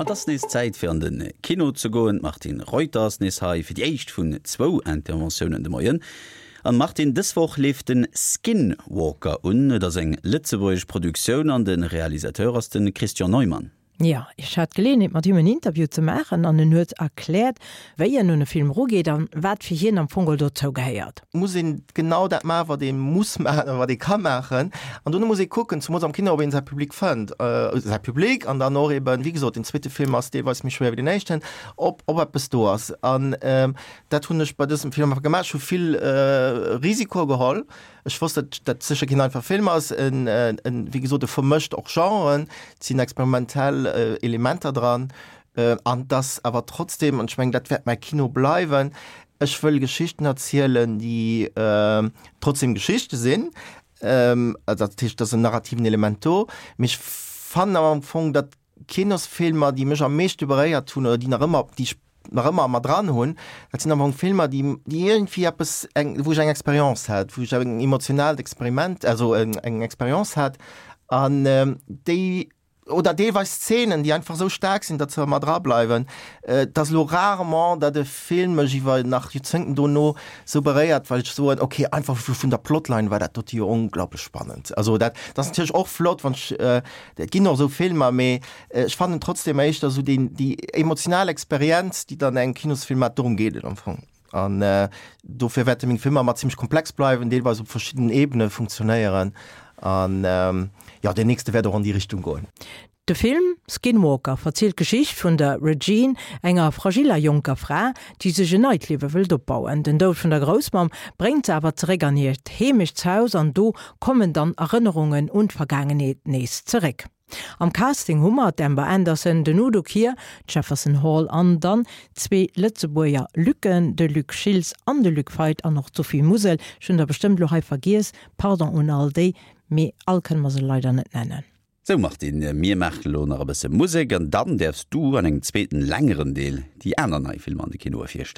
An et ass nees Zäit fir an de Kino ze goen. D'Martine Reuter ass nees hei fir déi éischt vun zwou Interventiounen de Moien. An Martine, dës Woch leeft de Skinwalker un. Et ass eng lëtzebuergesch Produktioun an de Realisateur ass de Christian Neumann. Jo, ech hat d'Geleeënheet mat him en Interview ze maachen an en huet erkläert, wéi en un e Film erugeet an wat fir hien am Fong geholl dozou gehéiert. Muss een genau dat maachen, wat ee muss maachen oder wat ee ka maachen. An dono muss ee kucken, zemools am Kino, ob een säi Public fënnt, säi Public an dann och eben, wéi gesot, den zweete Film ass deelweis méi schwéier wéi den éischten, ob ob eppes do ass. An dat hunn ech bei dësem Film einfach gemaach. Ech hu vill Risikoe geholl. Ech wosst, datt dat sécher keen einfache Film ass. En, en, wéi gesot, e vermëscht och Genren, et sinn experimentell Elementer dran, an et ass awer trotzdem, an ech mengen, dat wäert mäi Kino bleiwen, ech wëll Geschichten erzielen, déi trotzdem Geschichte sinn. Dat heescht, et ass en narrativen Element do, mee ech fannen awer am Fong, datt Kinosfilmer, déi mech am meeschte beréiert hunn oder déi nach ëmmer, déi ech nach ëmmer a mer dran hunn, dat sinn am Fong Filmer, déi, déi iergendwéi eppes, eng, wou ech eng Expérience hat, wou ech eng emotionaalt Experiment, also eng, eng Expérience hat an déi, oder deelweis Szenen, déi einfach esou staark sinn, datt se a mer dra bleiwen. Et ass elo rarement, datt e Film mech iwwer nach Joerzéngten dono esou beréiert, well ech soen, okay, einfach vun der Plotline war dat dote jo onglaublech spannend. Also dat, dat ass natierlech och flott, wann ech, Et ginn och esou Filmer, mee ech fannen trotzdem éischter esou deen, déi emotional Experienz, déi dann engem Kinosfilm mat, dorëm geet et am Fong. An dofir wäerte meng Filmer ëmmer zimmlech komplex bleiwen, deelweis op verschiddenen Ebene funktionéieren. An jo, deen nächste wäert och an déi Richtung goen. De Film Skinwalker verzielt d'Geschicht vun der Regine, enger fragiller jonker Fra, déi sech en neit Liewe wëllt opbauen. Den Doud vun der Groussmamm bréngt se awer zeréck an hiert Heemechtshaus an do kommen dann Erënnerungen un d'Vergaangenheet nees zeréck. Am Casting hu mer d'Amber Anderson, den Udo Kier, d'Jefferson Hall an dann zwee Lëtzebuerger Lucken, de Luc Schiltz an de Luc Feit an och d'Sophie Musel. Ech hunn der bestëmmt elo hei vergiess, pardon un all déi, mee all kënne mer se leider net nennen. Sou Martine, mir maachen elo nach e bësse Musek an dann däerfs du an engem zweeten, längeren Deel déi aner nei Filmer an de Kinoe virstellen.